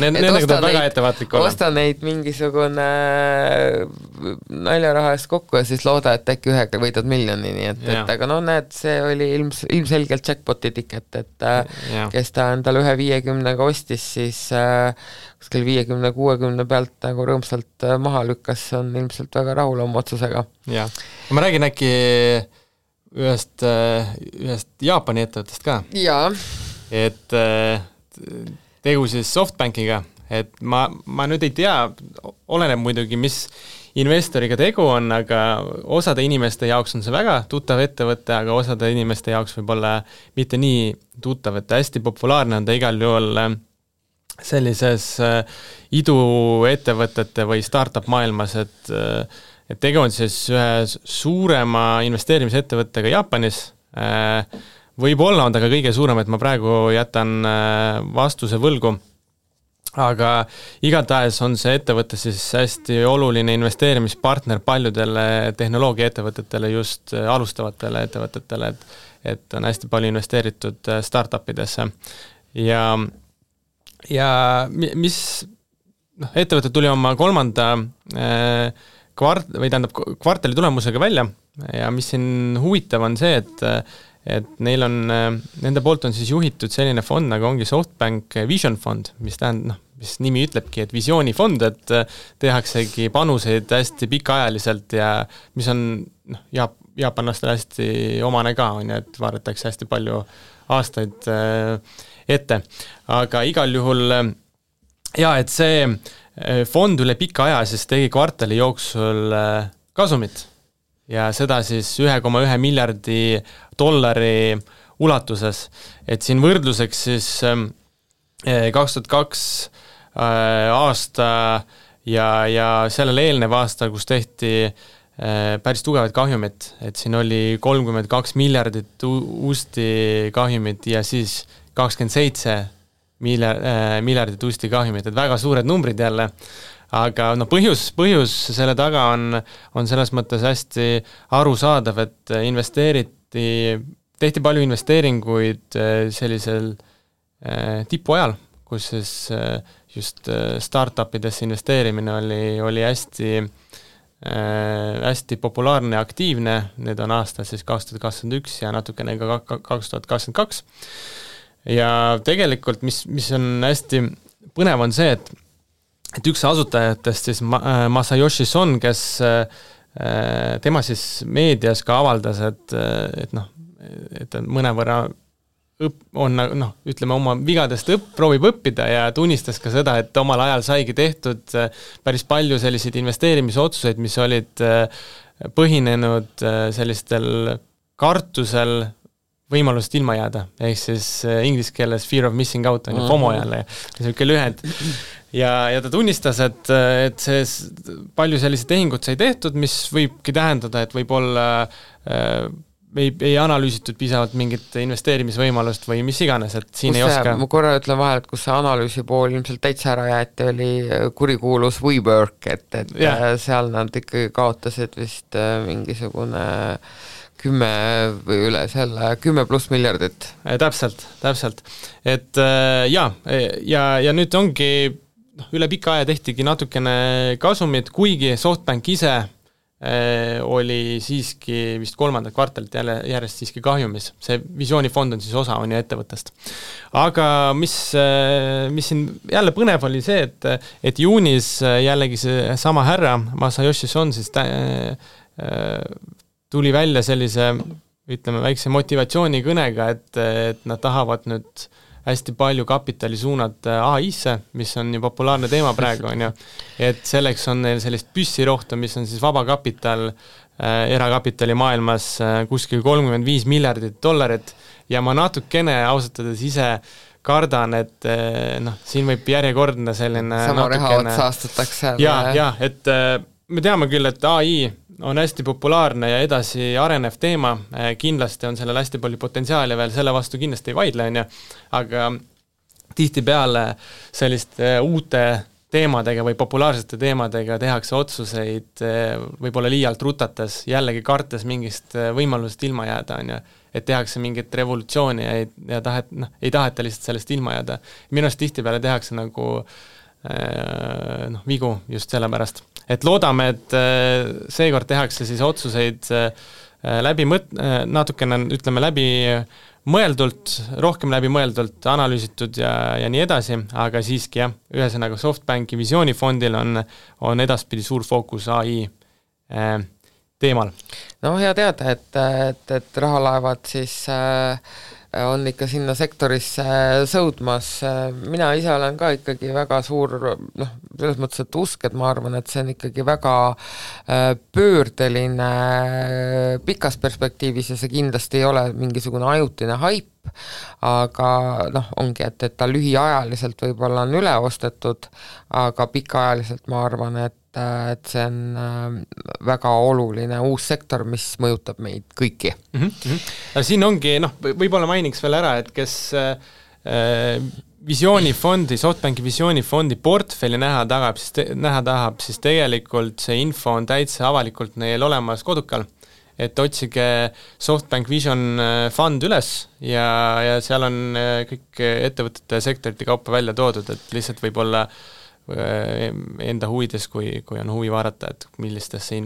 nendega tuleb väga ettevaatlik olla. Osta neid mingisugune naljaraha eest kokku ja siis looda, et äkki ühega võidad miljoni, nii et aga näed, see oli ilmselgelt jackpoti tiket, et kes ta endale 150-ga ostis, siis kuskil 50-60 pealt nagu rõõmsalt maha lükkas, on ilmselt väga rahul oma otsusega. Ja. Ma räägin äkki ühest Jaapani ettevõttest ka. Jaa. Et tegu siis SoftBankiga, et ma nüüd ei tea, oleneb muidugi, mis investoriga tegu on, aga osade inimeste jaoks on see väga tuttav ettevõte, aga osade inimeste jaoks võib olla mitte nii tuttav, et hästi populaarne on ta igal juhul sellises iduettevõtete või startup maailmas, et tegu on siis ühe suurema investeerimisettevõttega Jaapanis. Võib-olla on ta ka kõige suurem, et ma praegu jätan vastuse võlgu, aga igatahes on see ettevõte siis hästi oluline investeerimispartner paljudele tehnoloogiaettevõtetele, just alustavatele ettevõtetele, et on hästi palju investeeritud startupidesse. Ja mis ettevõte tuli oma 3. kvartali tulemusega välja ja mis siin huvitav on see, et neil on, nende poolt on siis juhitud selline fond, nagu ongi SoftBank Vision fond, mis tähendab, mis nimi ütlebki, et visioonifond, et tehaksegi panuseid hästi pikaajaliselt ja mis on jaapanlastel hästi omane ka, on ju, et vaadatakse hästi palju aastaid ette. Aga igal juhul et see fond üle pika aja siis tegi kvartali jooksul kasumit ja seda siis 1,1 miljardi dollari ulatuses. Et siin võrdluseks siis 2002 aasta ja sellele eelnev aasta, kus tehti päris tugevad kahjumid, et siin oli 32 miljardit uusti kahjumit ja siis 27 miljardit uusti kahjumit, et väga suured numbrid jälle, aga põhjus selle taga on selles mõttes hästi arusaadav, et tehti palju investeeringuid sellisel tipuajal, kus siis just startupidesse investeerimine oli hästi populaarne ja aktiivne, need on aastal siis 2021 ja natukene ka 2022. Ja tegelikult, mis on hästi põnev on see, et üks asutajatest siis Masayoshi Son, kes tema siis meedias ka avaldas, et mõnevõrra ütleme oma vigadest proovib õppida ja tunnistas ka seda, et omal ajal saigi tehtud päris palju selliseid investeerimisotsuseid, mis olid põhinenud sellistel kartusel võimalusest ilma jääda, ehk siis inglise keeles fear of missing out on ju FOMO jälle, selline lühend. Ja ta tunnistas, et see palju selliseid tehingut sai tehtud, mis võibki tähendada, et võib-olla ei analüüsitud piisavalt mingit investeerimisvõimalust või mis iganes, et siin ei oska. Ma korra ütlen vahel, et kus see analüüsi pool ilmselt täitsa ära jäeti, oli kurikuulus WeWork, et seal nad ikkagi kaotasid vist mingisugune 10 või üle selle 10+ miljardit. Täpselt. Et ja nüüd ongi üle pika aja tehtigi natukene kasumit, kuigi SoftBank ise oli siiski vist 3. kvartalit järjest siiski kahjumis. See visioonifond on siis osa on ju ettevõttest. Aga mis siin jälle põnev oli see, et juunis jällegi see sama härra Masayoshi Son siis tuli välja sellise, ütleme, väikse motivatsioonikõnega, et nad tahavad nüüd hästi palju kapitali suunata AI-sse, mis on ju populaarne teema praegu, on ju. Et selleks on neil sellist püssirohtu, mis on siis vaba kapital erakapitali maailmas kuskil 35 miljardit dollarit ja ma natukene ausatades ise kardan, et siin võib järjekordne selline sama rehaot saastatakse. Ja, et me teame küll, et AI on hästi populaarne ja edasi arenev teema, kindlasti on sellel hästi palju potentsiaali veel, selle vastu kindlasti ei vaidle, on ju, aga tihtipeale selliste uute teemadega või populaarsete teemadega tehakse otsuseid võib-olla liialt rutates, jällegi kartes mingist võimalusest ilma jääda, on ju, et tehakse mingit revolutsiooni ja ei taheta lihtsalt sellest ilma jääda. Minu arust tihtipeale tehakse nagu vigu just sellepärast. Et loodame, et seekord tehakse siis otsuseid natukene, ütleme, läbi mõeldult, rohkem läbi mõeldult, analüüsitud ja nii edasi, aga siiski jah, ühesõnaga SoftBanki visioonifondil on edaspidi suur fookus AI teemal. No hea teada, et rahalaevad siis on ikka sinna sektorisse sõudmas. Mina ise olen ka ikkagi väga suur, selles mõttes, et usk, et ma arvan, et see on ikkagi väga pöördeline pikas perspektiivis ja see kindlasti ei ole mingisugune ajutine haip, aga ongi, et ta lühiajaliselt võib-olla on üle ostetud, aga pikaajaliselt ma arvan, et see on väga oluline uus sektor, mis mõjutab meid kõiki. Siin ongi, võib-olla mainiks veel ära, et kes visioonifondi, SoftBanki visioonifondi portfelli näha tahab, siis tegelikult see info on täitsa avalikult neil olemas kodukal, et otsige SoftBank Vision Fund üles ja seal on kõik ettevõtete sektorite kaupa välja toodud, et lihtsalt võib-olla enda huvides, kui on huvi vaadata, et millistesse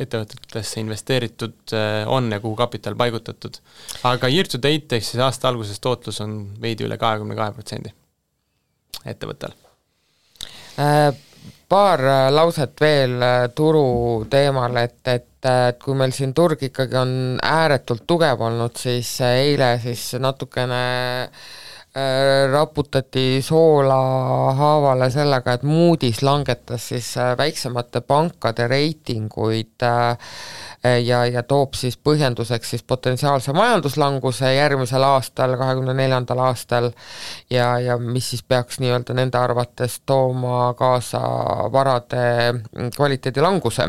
ettevõtetesse investeeritud on ja kuhu kapital paigutatud. Aga year to date ehk siis aasta alguses tootlus on veidi üle 22% ettevõttel. Paar lauset veel turu teemal, et kui meil siin turg ikkagi on ääretult tugev olnud, siis eile siis natukene raputati soola haavale sellega, et Moody's langetas siis väiksemate pankade reitinguid ja toob siis põhjenduseks siis potentsiaalse majanduslanguse järgmisel aastal, 2024. aastal ja mis siis peaks nii-öelda nende arvates tooma kaasa varade kvaliteedi languse.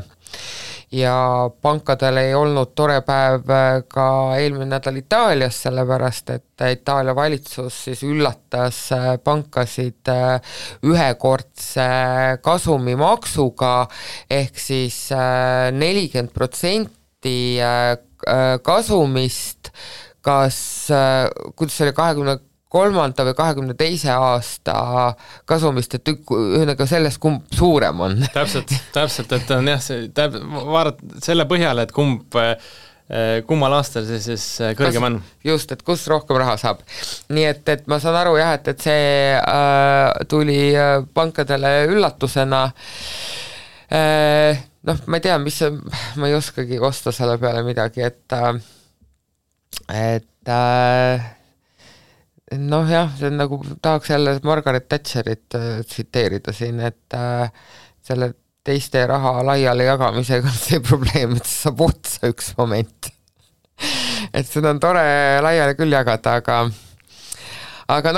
Ja pankadel ei olnud tore päev ka eelmine nädal Itaalias, sellepärast et Itaalia valitsus siis üllatas pankasid ühekordse kasumimaksuga ehk siis 40% kasumist, kuidas see oli 23. või 22. aasta kasumist, et ühesõnaga sellest, kumb suurem on. Täpselt, et on jah, vaadata selle põhjal, et kummal aastal see siis kõrgem on. Just, et kus rohkem raha saab. Nii et ma saan aru jah, et see tuli pankadele üllatusena. Ma ei tea, ma ei oskagi kosta selle peale midagi, et see on nagu, tahaks jälle Margaret Thatcherit tsiteerida siin, et selle teiste raha laiali jagamisega on see probleem, et see saab otsa üks moment. Et seda on tore laiali küll jagada, aga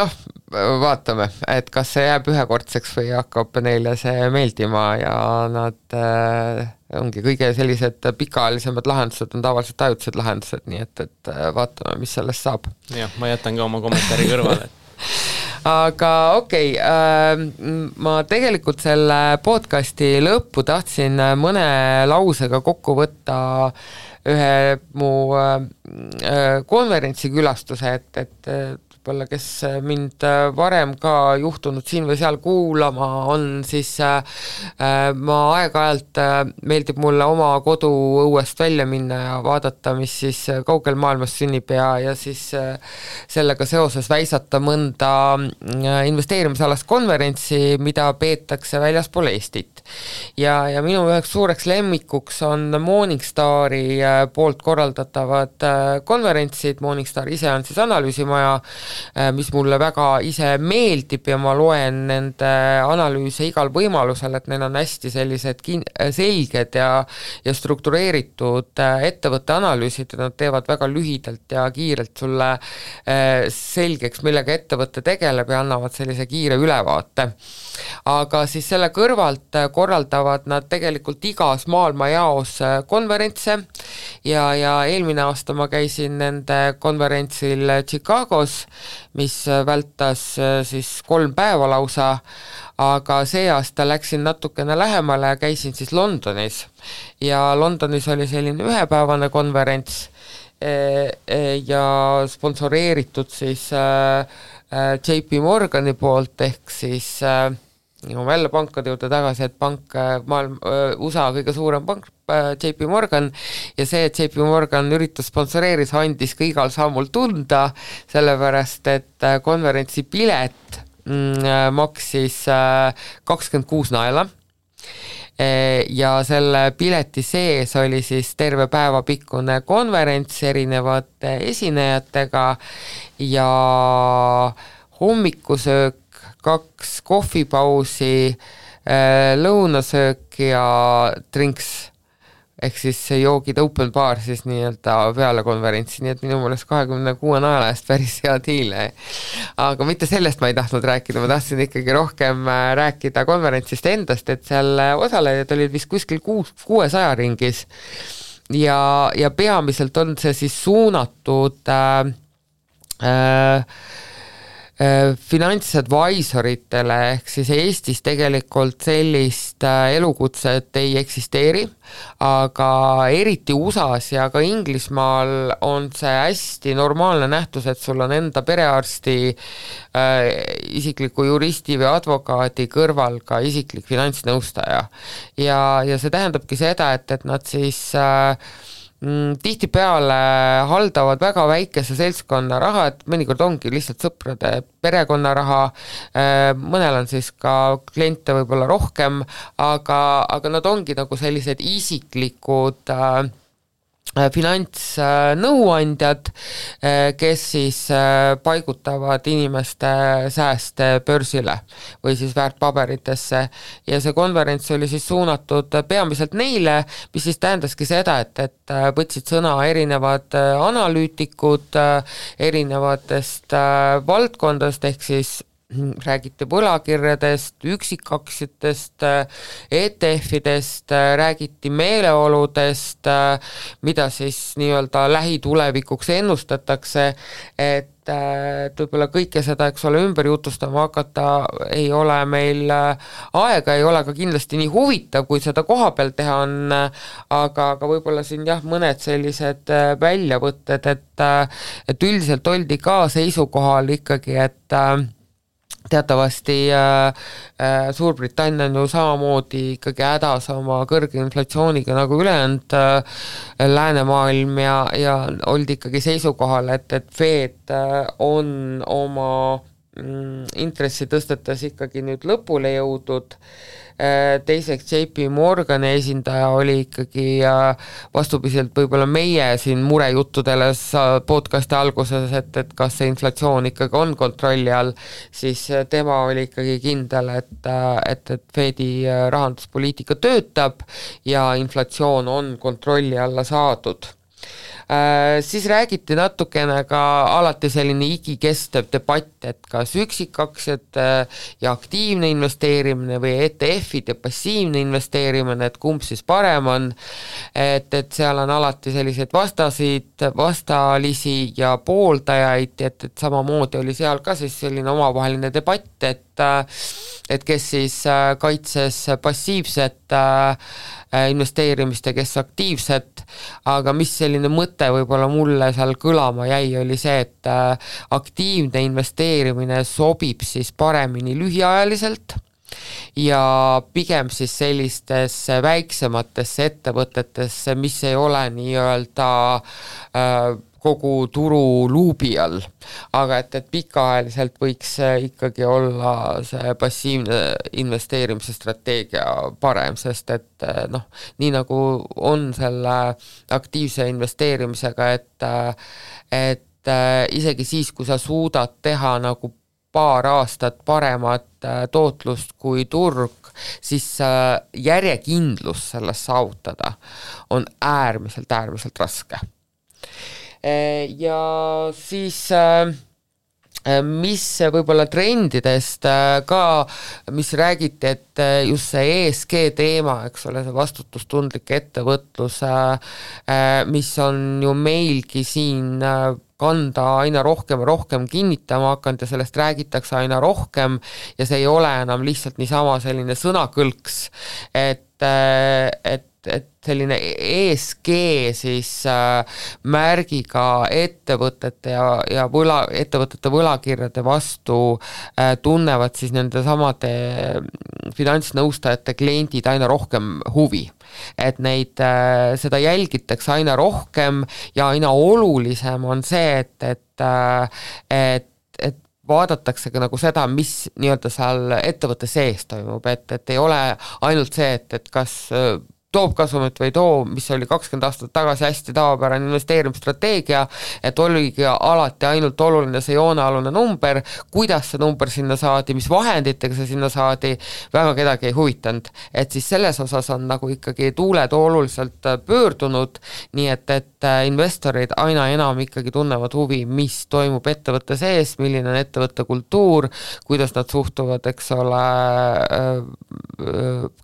vaatame, et kas see jääb ühekordseks või hakkab neile see meeldima ja nad ongi kõige sellised pikaajalisemad lahendused on tavaliselt ajutised lahendused, nii et vaatame, mis sellest saab. Jah, ma jätan ka oma kommentaari kõrvale. Aga okei, ma tegelikult selle podcasti lõppu tahtsin mõne lausega kokku võtta ühe mu konverentsi külastuse, et võib-olla, kes mind varem ka juhtunud siin või seal kuulama on, siis ma aeg-ajalt meeldib mulle oma kodu õuest välja minna ja vaadata, mis siis kaugel maailmas sünnib ja siis sellega seoses väisata mõnda investeerimisalast konverentsi, mida peetakse väljaspool Eestit. Ja minu üheks suureks lemmikuks on Morningstari poolt korraldatavad konverentsid. Morningstar ise on siis analüüsimaja, mis mulle väga ise meeldib ja ma loen nende analüüse igal võimalusel, et neil on hästi sellised selged ja struktureeritud ettevõtte analüüsid ja nad teevad väga lühidalt ja kiirelt sulle selgeks, millega ettevõtte tegeleb ja annavad sellise kiire ülevaate. Aga siis selle kõrvalt korraldavad nad tegelikult igas maailma jaos konverentse ja eelmine aasta ma käisin nende konverentsil Chicagos, mis vältas siis 3 päeva lausa, aga see aasta läksin natukene lähemale ja käisin siis Londonis. Ja Londonis oli selline ühepäevane konverents ja sponsoreeritud siis JP Morgani poolt ehk siis jälle pankade juurde tagasi, et pank, USA kõige suurem pank, JP Morgan, ja see, et JP Morgan üritus sponsoreeris, andis ka igal sammul tunda, sellepärast, et konverentsi pilet maksis 26 naela ja selle pileti sees oli siis terve päeva pikkune konverents erinevate esinejatega ja hommikusöök, 2 kohvipausi, lõunasöök ja drinks ehk siis joogid open bar siis nii-öelda peale konverentsi, nii et minu mõelest 26 naela eest päris hea diil. Aga mitte sellest ma ei tahtnud rääkida, ma tahtsin ikkagi rohkem rääkida konverentsist endast, et seal osalejad olid vist kuskil 600 ringis ja peamiselt on see siis suunatud finantsadvisoritele, ehk siis Eestis tegelikult sellist elukutset ei eksisteeri, aga eriti USAs ja ka Inglismaal on see hästi normaalne nähtus, et sul on enda perearsti, isikliku juristi või advokaadi kõrval ka isiklik finantsnõustaja. Ja see tähendabki seda, et nad siis tihtipeale haldavad väga väikese seltskonna raha, et mõnikord ongi lihtsalt sõprade perekonna raha, mõnel on siis ka kliente võib-olla rohkem, aga nad ongi nagu sellised isiklikud finantsnõuandjad, kes siis paigutavad inimeste sääste börsile või siis väärtpaberitesse ja see konverents oli siis suunatud peamiselt neile, mis siis tähendaski seda, et võtsid sõna erinevad analüütikud erinevatest valdkondadest, ehk siis räägiti võlakirjadest, üksikaktsiatest, ETF-idest, räägiti meeleoludest, mida siis nii-öelda lähitulevikuks ennustatakse, et võib-olla kõike seda, eks ole, ümber jutustama hakata ei ole meil aega, ei ole ka kindlasti nii huvitav, kui seda koha peal teha on, aga võib-olla siin jah, mõned sellised väljavõtted, et üldiselt oldi ka seisukohal ikkagi, et teatavasti Suurbritannia on ju samamoodi ikkagi hädas oma kõrge inflatsiooniga nagu ülejäänud läänemaailm ja oldi ikkagi seisukohal, et Fed on oma intressi tõstetes ikkagi nüüd lõpule jõudnud. Teiseks JP Morgani esindaja oli ikkagi vastupidiselt võib-olla meie siin murejuttudele podcasti alguses, et kas see inflatsioon ikkagi on kontrolli all, siis tema oli ikkagi kindel, et Fedi rahanduspoliitika töötab ja inflatsioon on kontrolli alla saadud. Siis räägiti natukene ka alati selline igikestev debatt, et kas üksikaktsiad ja aktiivne investeerimine või ETF-id ja passiivne investeerimine, et kumb siis parem on, et seal on alati selliseid vastalisi ja pooldajaid, et samamoodi oli seal ka siis selline omavaheline debatt, et kes siis kaitses passiivset investeerimist ja kes aktiivset, aga mis selline mõte võib-olla mulle seal kõlama jäi, oli see, et aktiivne investeerimine sobib siis paremini lühiajaliselt ja pigem siis sellistesse väiksematesse ettevõtetesse, mis ei ole nii-öelda kogu turu luubi all, aga et pikaajaliselt võiks ikkagi olla see passiivne investeerimise strateegia parem, sest et nii nagu on selle aktiivse investeerimisega, et isegi siis, kui sa suudad teha nagu paar aastat paremat tootlust kui turg, siis järjekindlus sellest saavutada on äärmiselt raske. Ja siis mis võib-olla trendidest ka, mis räägiti, et just see ESG teema, eks ole, see vastutustundlik ettevõtlus, mis on ju meilgi siin kanda aina rohkem ja rohkem kinnitama hakanud ja sellest räägitakse aina rohkem ja see ei ole enam lihtsalt niisama selline sõnakõlks, et selline ESG siis märgiga ettevõtete ja ettevõtete võlakirjade vastu tunnevad siis nende samade finantsnõustajate kliendid aina rohkem huvi. Et neid, seda jälgitakse aina rohkem ja aina olulisem on see, et vaadatakse ka nagu seda, mis nii-öelda seal ettevõtte sees toimub, et ei ole ainult see, et kas toob kasumit või too, mis oli 20 aastat tagasi hästi tavapärane investeerimisstrateegia, et oligi alati ainult oluline see joonealune number, kuidas see number sinna saadi, mis vahenditega see sinna saadi, väga kedagi ei huvitanud. Et siis selles osas on nagu ikkagi tuuled oluliselt pöördunud, nii et investorid aina enam ikkagi tunnevad huvi, mis toimub ettevõtte sees, milline on ettevõtte kultuur, kuidas nad suhtuvad, eks ole,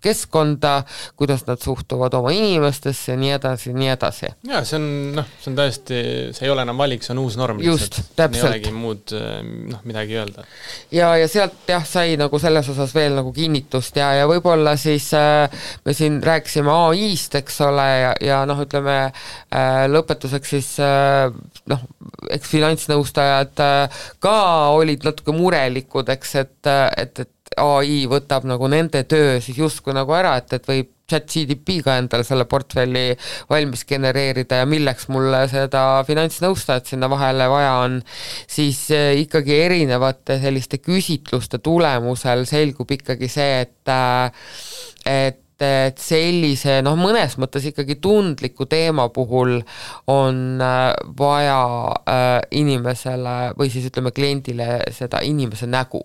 keskkonda, kuidas nad suhtuvad oma inimestesse ja nii edasi. Ja see on täiesti, see ei ole enam valik, see on uus norm. Just, täpselt. Ei olegi muud midagi öelda. Ja sealt sai nagu selles osas veel nagu kinnitust ja võib-olla siis me siin rääkisime AI-st, eks ole, ja ütleme lõpetuseks siis eks finantsnõustajad ka olid natuke murelikud, eks, et AI võtab nagu nende töö siis justkui nagu ära, et võib ChatGPT-ga endale selle portfelli valmis genereerida ja milleks mulle seda finantsnõustajat sinna vahele vaja on, siis ikkagi erinevate selliste küsitluste tulemusel selgub ikkagi see, et sellise, mõnes mõttes ikkagi tundliku teema puhul on vaja inimesele või siis ütleme kliendile seda inimese nägu.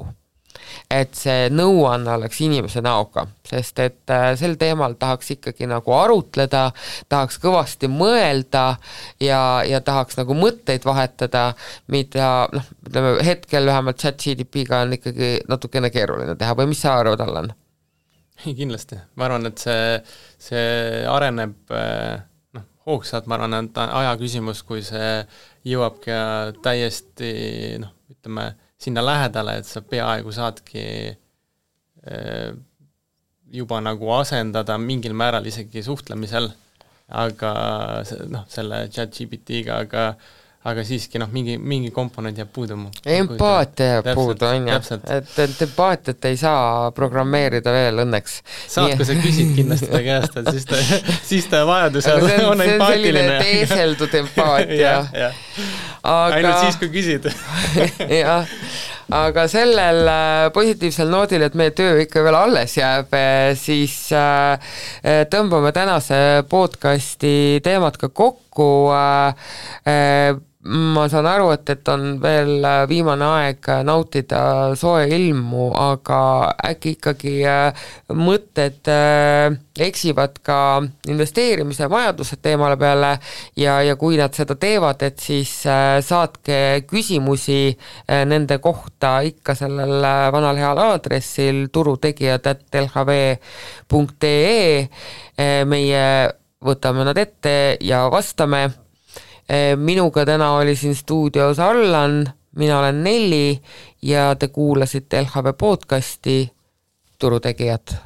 Et see nõuanne oleks inimese näoga, sest et sel teemal tahaks ikkagi nagu arutleda, tahaks kõvasti mõelda ja tahaks nagu mõtteid vahetada, mida ütleme, hetkel vähemalt ChatGPT-ga on ikkagi natukene keeruline teha või mis sa arvad, Allan? Kindlasti, ma arvan, et see areneb hoogsalt, ma arvan, et aja küsimus, kui see jõuab ka täiesti ütleme, sinna lähedale, et sa peaaegu saadki juba nagu asendada mingil määral isegi suhtlemisel, aga selle ChatGPT-ga, aga siiski mingi komponent jääb puudu. Empaatia jääb puudu, on ju. Et empaatiat ei saa programmeerida veel õnneks. Saad, kui sa küsid kindlasti ta käest, et siis ta vajadusel on empaatiline. See on selline teeseldud empaatia. Ainult siis, kui küsid. Jah. Aga sellel positiivsel noodil, et meie töö ikka veel alles jääb, siis tõmbame tänase podcasti teemad ka kokku. Ma saan aru, et on veel viimane aeg nautida soe ilmu, aga äkki ikkagi mõtted eksivad ka investeerimise vajadused teemale peale ja kui nad seda teevad, et siis saatke küsimusi nende kohta ikka sellel vanal heal aadressil turutegijad@lhv.ee. Meie võtame nad ette ja vastame. Minuga täna oli siin stuudios Allan, mina olen Nelli ja te kuulasite LHV podcasti Turutegijad.